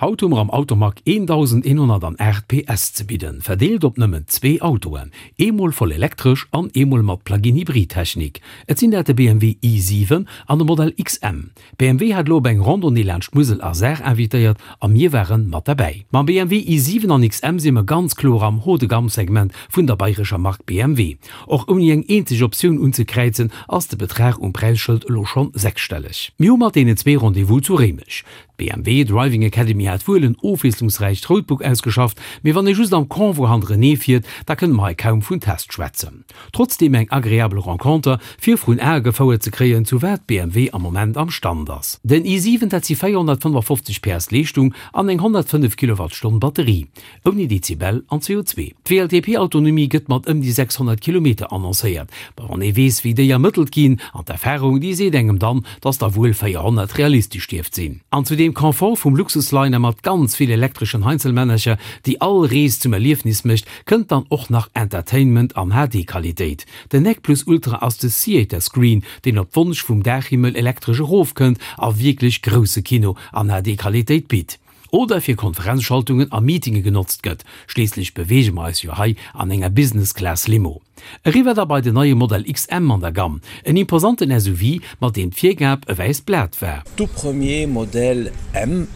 Haut hu mer am Automag 1.108 PS ze bidden, verdeelt op nëmmen zwee Autoen, eemol voll elektresch an eemol mat Plug-in-Hybrid-Technik. Et sinn dat de BMW i7 an de Modell XM. BMW hat elo op eng Randonnée laanscht Musel a Saar invitéiert a mir ware mat derbäi. Mam BMW i7 an XM si mer ganz kloer am Haut-de-gamme-Segment vun der bayrescher Mark BMW. Och ouni eng eenzeg Optioun unzekräizen, ass de Betrag um Präisschëld elo schonn sechsstelleg. Mir hu mat deenen zwee Rendez-vous zu Réimech. D'BMW Driving Academy hat wuel en ofwiesslungsräicht Roadbook ausgeschafft, mee wann ee just am Convoi hannerenee fiert, da kënne mer hei kaum vun Test schwätzen. Trotzdeem eng agreabel Renconter, fir vrun Ae gefouert ze kréien, zu wat BMW am Moment am Stand ass. Den i7, dat si 455 PS Leeschtung an eng 105 Kilowattstonn Batterie. Ouni Dezibel an CO2. D'WLTP-Autonomie gëtt mat ëm déi 600 Kilometer annoncéiert. Ma wann ee weess, wéi déi ermëttelt ginn, an d'Erfarung, déi seet engem dann, dass der wuel 400 realistesch dierft sinn. An zu deem Confort vum Luxusliner mat ganz vill elektreschen Heinzelmännercher, déi all Rees zum Erliefnis mécht, kënnt dann och nach Entertainment an HD-Qualitéit. Den Nec Plus Ultra ass de Theater Screen, deen op Wonsch vum Daachhimmel elektresch erofkënnt a wierklech grousse Kino an HD-Qualitéit bitt. Oder fir Konferenzschaltungen a Meetinge genotzt gëtt, schliisslech beweege mer eis jo hei an enger Business Class Limo. Eriwwer da bei den neie Modell XM an der Gamm, en imposanten SUV, mat deem d'Virgab e wäisst Blat war. Tout premier modèle M,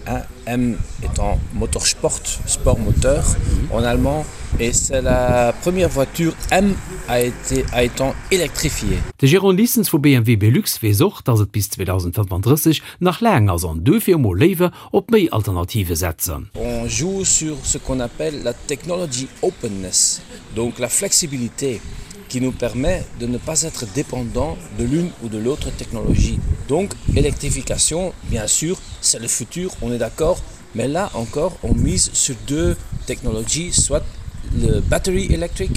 M étant Motorsport, Sport Moteur en allemand, et c'est la première voiture M a été a étant électrifiée. De Jérôme Lissens vu BMW Belux weess och, dass et bis 2035 nach laang ass an duerfir emol léiwer op méi Alternative setzen. On joue sur ce qu'on appelle la technology openness, donc la flexibilité qui nous permet de ne pas être dépendant de l'une ou de l'autre technologie. Donc électrification, bien sûr, c'est le futur, on est d'accord, mais là encore on mise sur deux technologies, soit le battery electric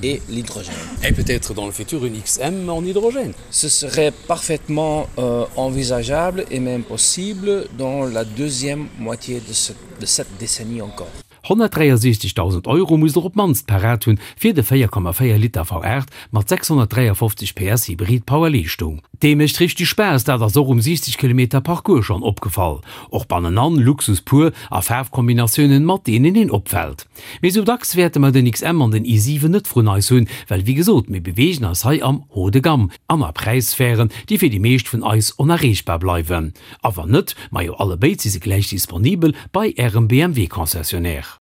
et l'hydrogène. Et peut-être dans le futur une XM en hydrogène. Ce serait parfaitement euh, envisageable et même possible dans la deuxième moitié de, ce, de cette décennie encore. 163.000 Euro musst der op d'mannst parat hunn, fir de 4,4 Liter V8 mat 653 PS Hybrid Power Leeschtung. Dee mécht richteg Spaass, dat ass och um 60 Kilometer Parcours schonn opgefall. Och bannenan Luxus pur a Faarfkombinatiounen mat deenen een opfält. Mee sou dacks wäerte mer den XM an den i7 net vrun eis hunn, well wéi gesot, mir beweegen eis hei am Haut de gamme an a Präissphären, déi fir déi meescht vun eis onerreechbar bleiwen. A wann net, majo allebéid si se gläich disponibel bei ärem BMW Concessionnaire.